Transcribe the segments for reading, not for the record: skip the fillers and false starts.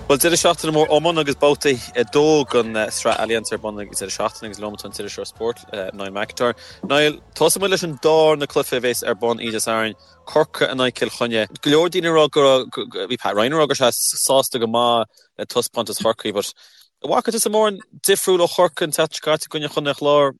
Bhuel, deireadh seachtaine mór iomána agus babhta 2 den Sraith Allianz ar bun ag deireadh seachtaine agus liom atá an t-iriseoir spóirt, Niall McIntyre. Niall, tosóidh muid leis an darna cluiche a bhéas ar bun oíche Dé Sathairn, Corcaigh in aghaidh Cill Chainnigh. Go leor daoine ag rá go raibh, bhí Pat Ryan ag rá go raibh sé sásta go maith le taispeántas Chorcaí but an bhfaca tusa mórán difriúil ó Chorcaigh an tseachtain seo caite i gcoinne Chontae an Chláir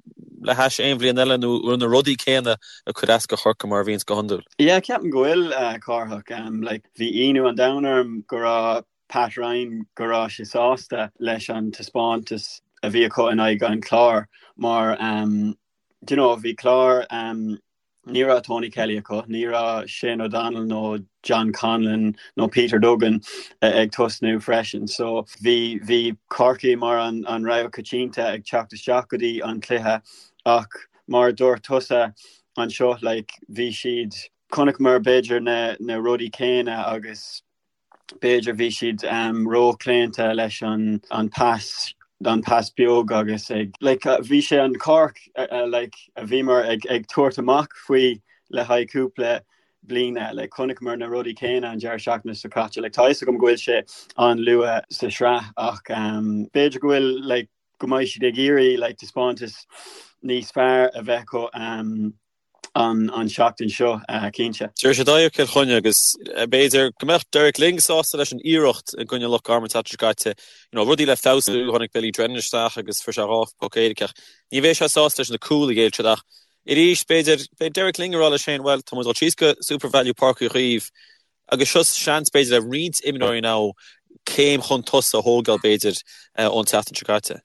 le hais aon bhliain eile nó an raibh na rudaí céanna ag cur as do Chorcaigh mar a bhíonns go hiondúil? Yeah, ceapaim go bhfuil, Cárthach. Like, Bhí ionadh an domhain orm go raibh Pat Ryan, go raibh sé sásta leis an taispeántas a bhí acu in aghaidh an Chláir mar do you know bhí Clár ní raibh Tony Kelly acu, ní raibh Shane O'Donnell nó John Conlon nó Peter Duggan ag tosnú freisin. So bhí bhí Corcaigh mar an an rogha coitianta ag teacht isteach go dtí an cluiche ach mar a dúirt tusa anseo like bhí siad Chonaiceamar b'fhéidir na na rudaí céanna agus b'fhéidir bhí siad róchlaonta leis an an pas an pas beag agus ag like bhí sé an Cork like a bhíomar ag ag tabhairt amach faoi le haghaidh cúpla bliana like chonaiceamar na rudaí céanna an deireadh seachtaine seo caite like tá a fhios agam go bhfuil sé an-luath sa sraith ach b'fhéidir go bhfuil like go mbeidh siad ag iarraidh like taispeántas níos fearr a bheith acu an tseachtain seo, cinnte. Tabharfaidh siad aghaidh ar Chill Chainnigh agus b'fhéidir go mbeadh Derek Lyng sásta leis an iarracht i gcoinne Loch Garman an tseachtain seo caite. You know, rudaí le feabhsú, tháinig Billy Drennan isteach agus fuair sé 2 phoc éirice ach ní bheidh sé sásta leis na cúil a ghéill siad ach arís b'fhéidir beidh Derek Lyng ag rá leis féin, bhuel, tá muid ag dul síos go SuperValu Páirc Uí Chaoimh agus seo seans b'fhéidir le roinnt imreoirí now céim chun tosaigh a thógáil b'fhéidir ón tseachtain seo caite.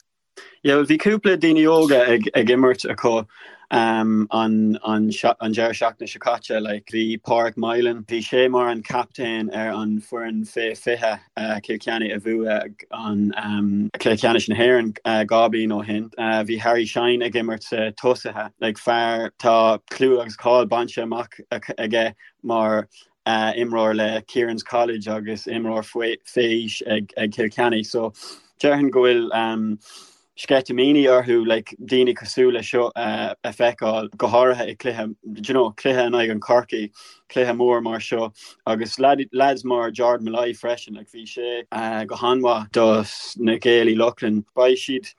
Yeah, bhuel, bhí cúpla daoine óga ag ag imirt acu um, an, an, an deireadh seachtaine seo caite. Like, bhí Pádraig Moylan, bhí sé mar an captaen ar an foireann fé 20 uh, Cill Chainnigh a bhuaigh an um, Cluiche Ceannais na hÉireann uh, 2 bliain ó shin. Uh, bhí Harry Shine ag imirt sa tosaithe. Like, fear tá clú agus cáil bainte amach aige mar imreoir le Kieran's College agus imreoir faoi aois ag Cill Chainnigh. So déarfainn go bhfuil sceitimíní orthu like daoine cosúil le seo a feiceáil, go háirithe i cluiche, do you know, cluiche in aghaidh an Chorcaí, cluiche mór mar seo agus lads mar Jordan Molloy freisin, like bhí sé go han-mhaith do na Gaeil Uí Lochlainn. Beidh siad,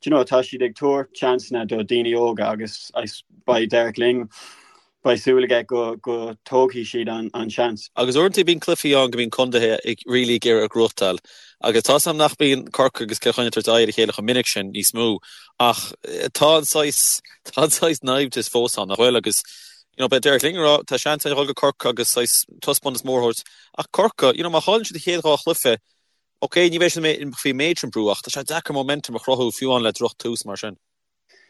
do you know, tá siad ag tabhairt seansanna do daoine óga agus beidh Derek Lyng Beidh súil aige go go dtógfaidh siad an seans. Agus uaireanta bíonn cluichí ann go mbíonn contaetha ag really ag iarraidh a ghnóthachtáil agus tá 's agam nach mbíonn Corcaigh agus Cill Chainnigh ag tabhairt aghaidh ar a chéile chomh minic sin níos mó ach tá an saghas tá an saghas naimhdeas fós ann nach bhfuil agus you know beidh Derek Lyng ag rá tá seans againn a dhul go Corcaigh agus saghas taispeántas mór a thabhairt ach Corcaigh you know má chailleann siad an chéad dhá chluiche ok ní bheidh siad faoi méid sin brú ach tá sé deacair momentum a chruthú fiú amháin le droch tús mar sin.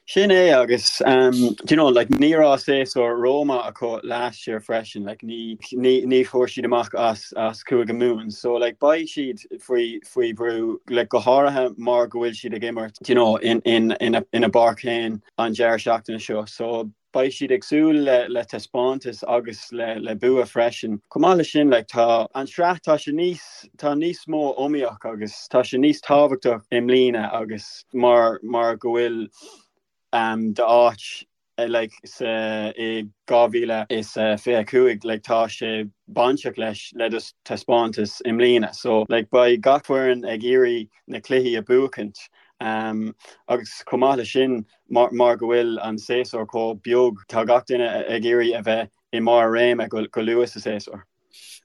Sin é agus do you know like ní raibh séasúr rómhaith acu last year freisin like ní ní ní fuair siad amach as as Cúige Mumhan so like beidh siad faoi faoi bhrú like go háirithe mar go bhfuil siad ag imirt do you know in in ina ina bpáirc féin an deireadh seachtaine seo so beidh siad ag súil le le taispeántas agus le le bua freisin. Chomh maith leis sin like tá an sraith tá sé níos tá níos mó iomaíoch agus tá sé níos tábhachtach i mbliana agus mar mar go bhfuil um, d'áit like sa i 2025 like tá sé bainteach leis le do taispeántas i mbliana so like beidh gach foireann ag iarraidh na cluichí a buachaint um, agus chomh maith leis sin mar mar go bhfuil an séasúr chomh beag tá gach duine ag iarraidh a bheith i mbarr a réime go go luath sa séasúr.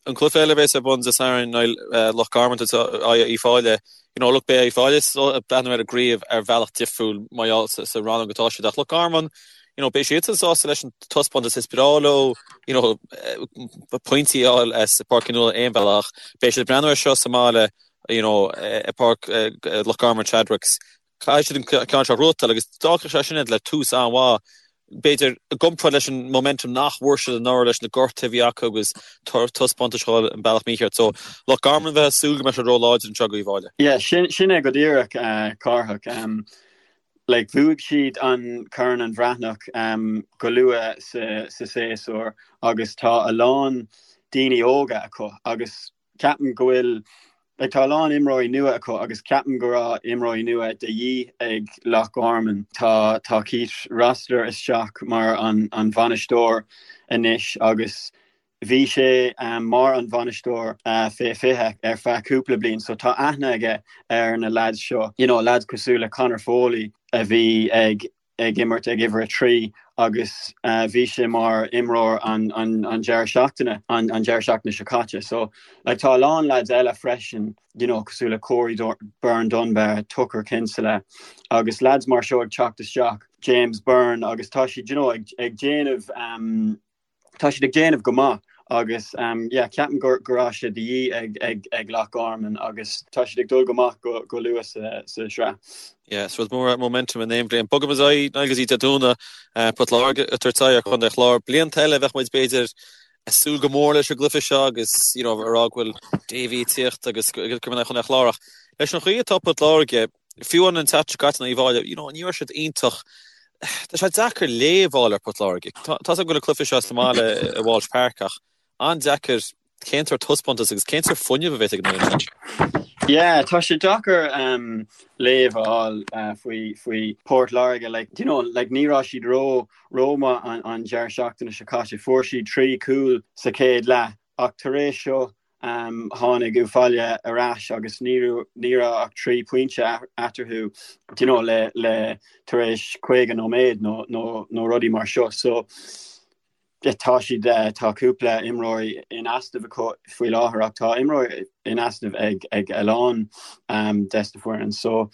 An cluiche eile a bheas ar bun Dé Sathairn ná Loch Garman in aghaidh Uíbh Fhailí. You know, look, beidh Uíbh Fhailí ag breathnú ar an gcraobh ar bhealach difriúil mar gheall sa rannóg atá siad ach Loch Garman, you know, beidh siadsan sásta leis an taispeántas is breá leo, you know, pointí a fháil as Páirc Uí Nualláin aon bhealach. Beidh siad ag breathnú ar seo sa mbaile, you know, i bPáirc Loch Garman Chadwicks. Caithfidh siad an ceann seo a ghnóthachtáil agus d'fhágfadh sé sin iad le tús an-mhaith, b'fhéidir, i gcomparáid leis an momentum nach bhfuair siad anuraidh leis na gortuithe a bhí acu agus taispeántais a dhul an bealach mícheart. So, Loch Garman bheifeá ag súil go mbeadh siad ró-láidir anseo do Uíbh Fhailí. Yeah, sin sin é go díreach, Cárthach. Like, bhuaigh siad an Corn an Bhreathnach go luath sa sa séasúr agus tá a lán daoine óga acu agus ceapaim go bhfuil like tá a lán imreoirí nua acu agus ceapaim go raibh imreoirí nua de dhíth ag Loch Garman. Tá tá Keith Rossiter isteach mar an an bhainisteoir anois agus. Bhí sé mar an bhainisteoir fé 20 ar feadh cúpla bliain so tá aithne aige ar na lads seo, you know, lads cosúil le Conor Foley a bhí ag ag imirt ag uimhir 3 agus bhí sé mar imreoir an an an deireadh seachtaine an an deireadh seachtaine seo caite. So like tá a lán lads eile freisin, you know, cosúil le Corey Byrne Dunbar, Tucker Kinsella agus lads mar seo ag teacht isteach, James Byrne agus tá siad, you know, ag ag déanamh um, tá siad ag déanamh go maith agus yeah ceapaim go go raibh sé de dhíth ag ag ag Loch Garman agus tá siad ag dul go maith go go luath sa sa sraith. Yeah, is rud mór é momentum in aon bhliain. Bogaimis ar aghaidh Niall go dtí Dé Domhnaigh, Port Láirge ag tabhairt aghaidh ar Chontae an Chláir. Blianta eile bheadh muid b'fhéidir ag súil go mór leis an gcluiche seo agus you know a rá go bhfuil Davy ag tíocht agus go mbeidh Contae an Chláir ach leis an chaoi atá Port Láirge, Fiú an tseachtain seo caite in aghaidh Uíbh Fhailí, you know, ní raibh siad iontach. Tá sé deacair léamh a fháil ar Port Láirge. Tá a fhios agam go bhfuil an cluiche seo sa mbaile i Walsh Park ach an-deacair cén sórt taispeántas agus cén sórt fuinneamh a bheas ag an fhoireann sin. Yeah, tá sé deacair um, léamh a fháil uh, faoi, faoi Port Láirge. Like, you know, like, ní raibh siad ró rómhaith an, an deireadh seachtaine seo caite. Fuair siad 3 cúl sa chéad leath ach tar éis seo Tháinig Uíbh Fhailí ar ais agus ní raibh ach 3 pointe eatarthu do you know le le tar éis 50 nóiméad nó nó nó rudaí mar seo. So tá siad tá cúpla imreoirí in easnamh acu faoi láthair ach tá imreoirí in easnamh ag ag a lán des na foireann. So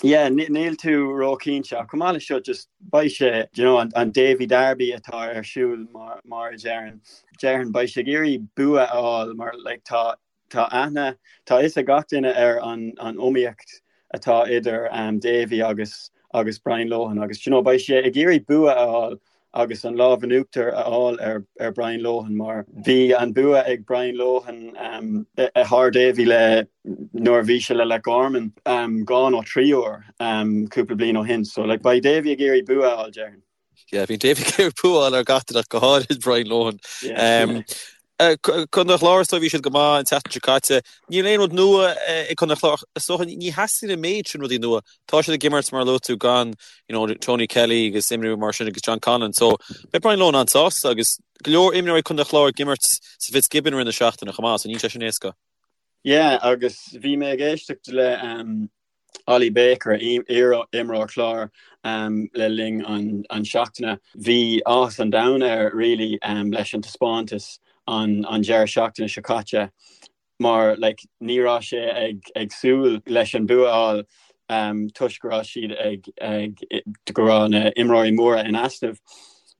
yeah níl tú róchinnte ach chomh maith le seo just beidh sé you know an an Davy Derby atá ar siúl mar mar a deireann. Déarfainn beidh sé ag iarraidh bua a fháil mar like tá tá aithne tá fhios ag gach duine ar an an iomaíocht atá idir um, Davy agus agus Brian Lohan agus you know, beidh sé ag iarraidh bua a fháil agus an lámh in uachtar a fháil ar ar Brian Lohan mar bhí an bua ag Brian Lohan um, thar Davy le nuair a bhí sé le Loch Garman um, dhá nó trí uair um, cúpla bliain ó shin so like, beidh Davy ag iarraidh bua a fháil déarfainn. Yeah, bhí Davy ag iarraidh bua a fháil ar gach duine ach go háirid Brian Lohan. Contae an Chláir is dóigh bhí siad go maith an tseachtain seo caite. Níl aon rud nua ag Contae an Chláir. Is dócha ní theastaíonn an méid sin rudaí nua. Tá siad ag imirt mar a luaigh tú gan you know, Tony Kelly agus imreoirí mar sin agus John Conlon. So beidh Brian Lohan an-sásta agus go leor imreoirí Contae an Chláir ag imirt sa Fitzgibbon i rith na seachtaine chomh maith, so níl sé sin éasca. Yeah, agus bhí mé ag éisteacht le um, Ollie Baker, iar-imreoir Chláir le linn an seachtaine. Bhí áthas an domhain air really leis an taispeántas an deireadh seachtaine seo caite mar like ní raibh sé ag ag súil leis an bua a fháil toisc go raibh siad ag ag go raibh na imreoirí móra in easnamh.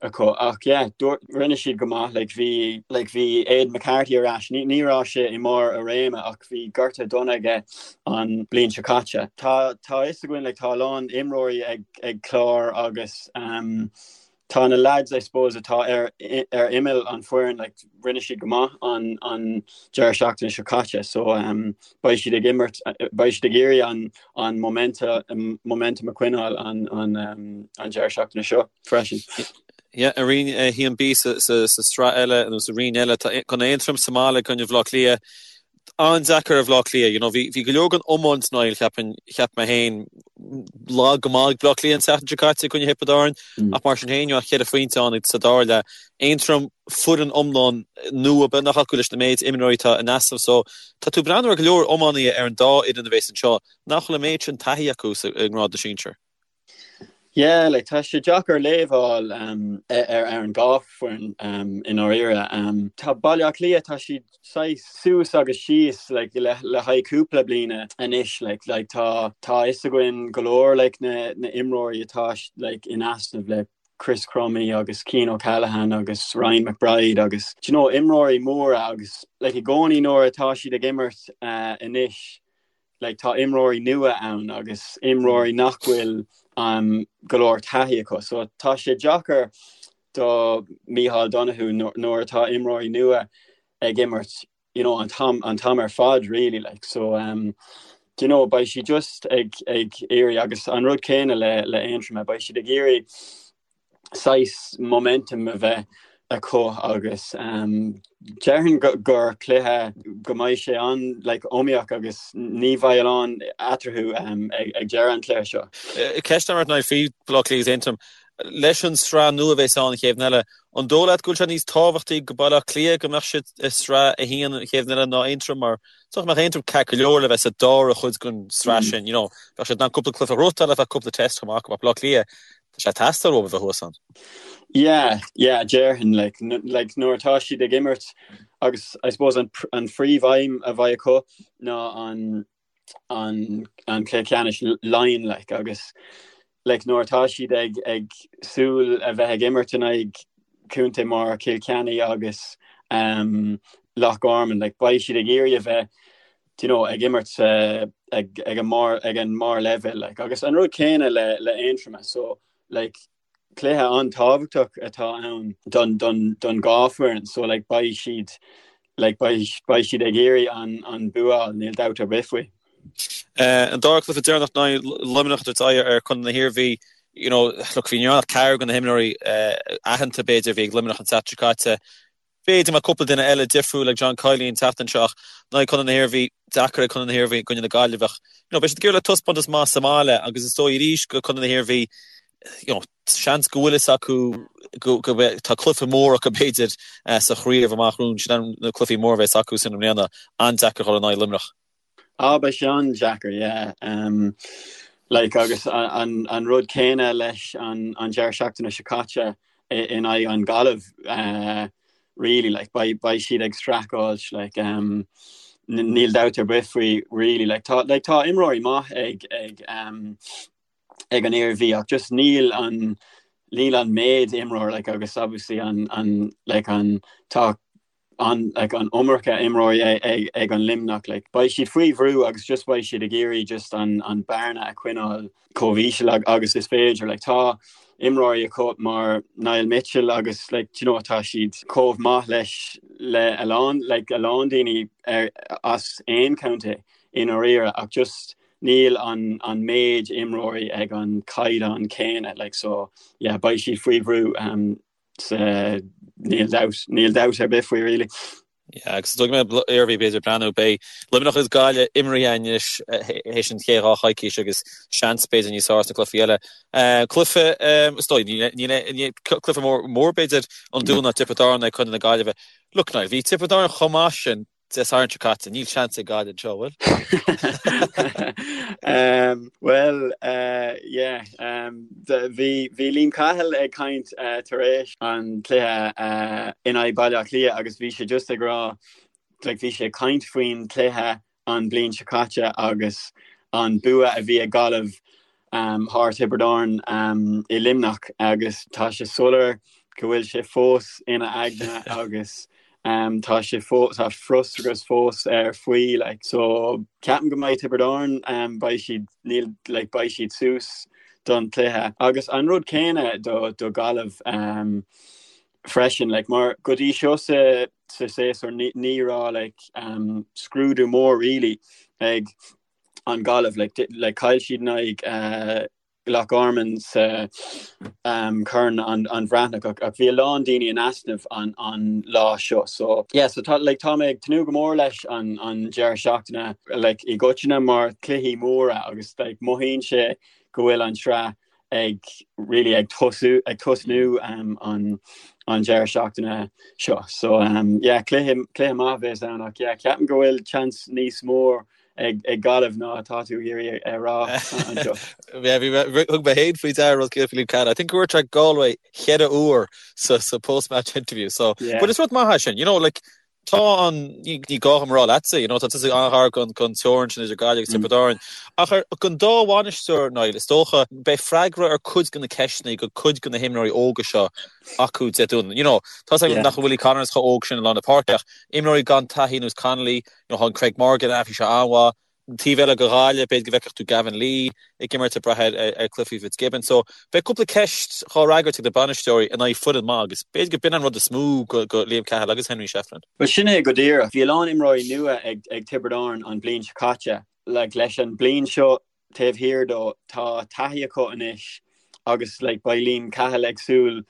acu ach yeah dúirt rinne siad go maith like bhí like bhí Aidan McCarthy ar ais ní ní raibh sé i mbarr a réime ach bhí gortú dona aige an bliain seo caite. Tá tá fhios againn like tá a lán imreoirí ag ag Clár agus um, tá na lads I suppose atá ar ar imeall an foireann like rinne siad go maith an an deireadh seachtaine seo caite so um, beidh siad ag imirt beidh siad ag iarraidh an an momentum momentum a choinneáil an an um, an deireadh seachtaine seo. freisin. Yeah, i Roinn 1B sa sraith eile nó sa roinn eile tá Contae Aontroim sa mbaile i gcoinne Bhaile Átha Cliath. An-deacair ar Bhaile Átha Cliath, you know, bhí go leor den iomáint Niall, cheapfainn, cheap mé féin, lag go maith ag Baile Átha Cliath an tseachtain seo caite i gcoinne Thiobraid Árann, ach mar sin féin, you know, cheithre phointe ann sa dara leath. Aontroim, foireann iomlán nua beagnach acu leis na méid imreoirí atá in easnamh so tá tú ag breathnú ar go leor iománaithe ar an dá fhoireann a bhéas anseo nach bhfuil an méid sin taithí acu sa i ngrád na sinsear. Yeah, like tá sé deacair léamh a fháil um, ar ar an dhá foireann um, i ndáiríre. Um, tá Baile Átha Cliath tá siad saghas suas agus síos like, le, le haghaidh cúpla bliana anois like, like, tá tá fhios againn go leor like, na, na imreoirí atá like, in easnamh le Chris Crummey agus Cian O'Callaghan agus Ryan McBride agus do you know, imreoirí móra agus like, i gcónaí nuair atá siad ag imirt uh, anois like tá imreoirí nua ann agus imreoirí nach bhfuil um, go leor taithí acu. So tá sé deacair do Micheál Donoghue nuair atá imreoirí nua ag imirt you know, an t-am an t-am ar fad really like so um, do you know, beidh siad just ag ag iarraidh agus an rud céanna le le Aontroim beidh siad ag iarraidh saghas momentum a bheith acu agus déarfainn gur cluiche go mbeidh sé an like iomaíoch agus ní bheidh a lán eatarthu ag deireadh an chluiche seo. Ceist agam ort Niall faoi Bhaile Átha Cliath agus Aontroim. Leis an sraith nua a bheas ann an chéad bhliain eile, an dóigh leat go bhfuil sé níos tábhachtaí go Baile Átha Cliath go mbeadh siad i sraith a haon an chéad bhliain eile ná Aontroim mar is dócha go mbeadh Aontroim ceart go leor le bheith sa dara chuid den sraith sin, you know, bheadh siad in ann cúpla cluiche a ghnóthachtáil ar feadh cúpla test chomh maith acu ach Baile Átha Cliath, tá sé ag teastáil uathu a bheith thuas ann. Yeah, yeah, déarfainn, like, like nuair atá siad ag imirt agus I suppose an, an phríomhaidhm a bheidh acu ná an an an cluiche ceannais Laighean like agus like nuair atá siad ag ag súil a bheith ag imirt in aghaidh contae mar Cill Chainnigh agus um, Loch Garman like beidh siad ag iarraidh a bheith do you know, ag imirt uh, ag, ag an mbarr ag an mbarr leibhéal like agus an rud céanna le le Aontroim so like cluiche an-tábhachtach atá ann don don don dhá foireann so like beidh siad like beidh beidh siad ag iarraidh an an bua a fháil níl dabht ar bith faoi. An dara cluiche deireanach in aghaidh Luimneach ag tabhairt aghaidh ar Chontae na hIarmhí you know look bhí ní raibh ach ceathrar de na himreoirí aitheanta b'fhéidir a bhí ag Luimneach an tseachtain seo caite. B'fhéidir go mbeadh cúpla duine eile difriúil ag John Kiely an tseachtain seo ach in aghaidh Chontae na hIarmhí, deacair ag Contae na hIarmhí i gcoinne na Gaillimhe ach you know beidh siad ag iarraidh le taispeántas maith sa mbaile agus is dóigh arís go Contae na hIarmhí you know seans go bhfuil fhios acu go go mbeidh tá cluiche mór acu b'fhéidir sa chraobh amach romhainn sin na cluichí móra a bheas acu sin i mbliana an-deacair dhul in aghaidh Luimneach. Ah, beidh sé an-deacair, yeah. Um, like, agus an, an rud céanna leis an, an deireadh seachtaine seo caite in aghaidh an Gaillimh, uh, really, like, beidh, beidh siad ag streachailt, like, um, níl dabht ar bith faoi, really, like, tá, like, tá imreoirí maith ag, ag, um, ag an Iarmhí ach just níl an, níl an méid imreoir, like, agus obviously an, an, like, an, tá an like an iomarca imreoirí ag ag an Luimneach like beidh siad faoi bhrú agus just beidh siad ag iarraidh just an an bearna a choinneáil chomh íseal agus is féidir like tá imreoirí acu mar Niall Mitchell agus like do you know tá siad chomh maith leis le a lán like a lán daoine ar as aon contae i ndáiríre ach just níl an an méid imreoirí ag an caighdeán céanna like so yeah beidh siad faoi bhrú um, Níl dabht, níl dabht ar bith faoi really. Yeah, agus is dóigh go mbeidh Iarmhí b'fhéidir ag breathnú, beidh Luimneach agus Gaillimh imeartha anois théis an chéad dá choicís agus seans b'fhéidir níos fearr sna cluichí eile. Cluiche, is dóigh, níl, cluiche mór, mór b'fhéidir an Dún ná Tiobraid Árann ag Contae na Gaillimhe. Look Niall, bhí Tiobraid Árann chomh maith sin Dé Sathairn seo caite, níl seans ag Gaillimh anseo, bhfuil? Bhuel, yeah, bhí bhí Liam Cahill ag caint tar éis an cluiche in aghaidh Baile Átha Cliath agus bhí sé just ag rá, like bhí sé ag caint faoin cluiche an bliain seo caite agus an bua a bhí ag Gaillimh thar Tiobraid Árann i Luimneach agus tá sé soiléir go bhfuil sé fós ina aigne agus tá sé fós tá frustrachas fós air faoi like so ceapaim go mbeidh Tiobraid Árann beidh siad níl like beidh siad suas don chluiche agus an rud céanna do do Gaillimh freisin like mar go dtí seo sa sa séasúr ní ní raibh like scrúdú mór really ag an Gaillimh like like chaill siad in aghaidh uh, Loch Garman sa um, Corn an, an Bhreathnach ach, ach bhí a lán daoine in easnamh an, an lá seo so yeah, so tá, like, tá mé ag tnúth go mór leis an, an deireadh seachtaine like, i gcoitinne mar cluichí móra agus like, mothaíonn sé go bhfuil an tsraith ag really ag tosú ag tosnú um, an an deireadh seachtaine seo. So um, yeah, cluiche cluiche maith a bheas ann ach yeah, ceapaim go bhfuil chance níos mór ag ag Gaillimh ná atá tú ag iarraidh a rá anseo. Yeah, bhí mé thug mé féin faoi deara rud céanna faoi Liam Cahill. I think go ndúirt sé Galway cheithre uair sa sa post-match interview. So, yeah. but is rud maith é sin, you know, like Tá an, ní gá dom a rá leatsa, you know, tá tusa an-ghar don teorainn sin idir Gaillimh agus Tiobraid Árann. Ach ar don dá bhainisteoir, Niall, is dócha, beidh freagra ar cuid de na ceisteanna go cuid de na himreoirí óga seo acu Dé Domhnaigh. You know, tá 's agam nach bhfuil Willie Connors chomh óg sin i lár na páirce ach imreoirí gan taithí ar nós Connolly, you know, tá an Craig Morgan, bhí sé an-mhaith. An taobh eile go Ghaillimh, b'fhéidir go bhfeicfeadh tú Gavin Lee ag imirt ag brath ar cluichí Fitzgibbon. So, beidh cúpla ceist dhá fhreagairt ag na bainisteoirí in aghaidh foireann maith agus b'fhéidir go b'in an rud is mó go Liam Cahill agus Henry Shefflin. Bhuel, sin é go díreach. Bhí a lán imreoirí nua ag ag Tiobraid Árann an bhliain seo caite. Like, leis an bliain seo taobh thiar dó, tá taithí acu anois agus like, beidh Liam Cahill ag súil.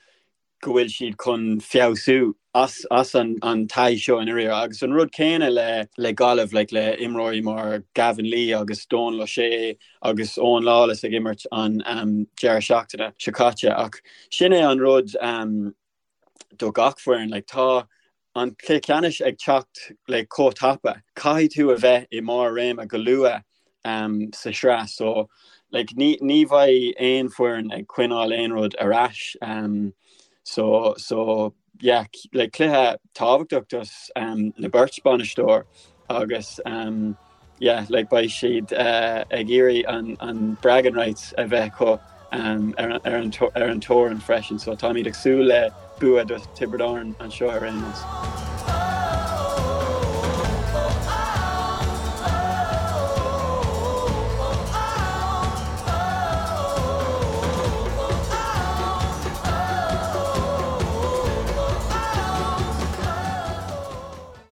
go bhfuil siad chun feabhsú as as an an taithí seo i ndáiríre agus an rud céanna le le Gaillimh like le imreoirí mar Gavin Lee agus Dónal O'Shea agus Owen Lawless ag imirt an um, deireadh seachtaine seo caite ach sin é an rud um, do gach foireann like tá an cluiche ceannais ag teacht like chomh tapa. Caithfidh tú a bheith i mbarr réime go luath um, sa sraith so like ní ní bheidh aon foireann ag coinneáil aon rud ar ais um, so so yeah like cluiche tábhachtach dos um, na beirt bainisteoir agus um, yeah like beidh siad uh, ag iarraidh an, an bragging rights a bheith acu um, ar, ar, an, ar an teorainn freisin so táimid ag súil le bua do Tiobraid Árann anseo ar aon nós.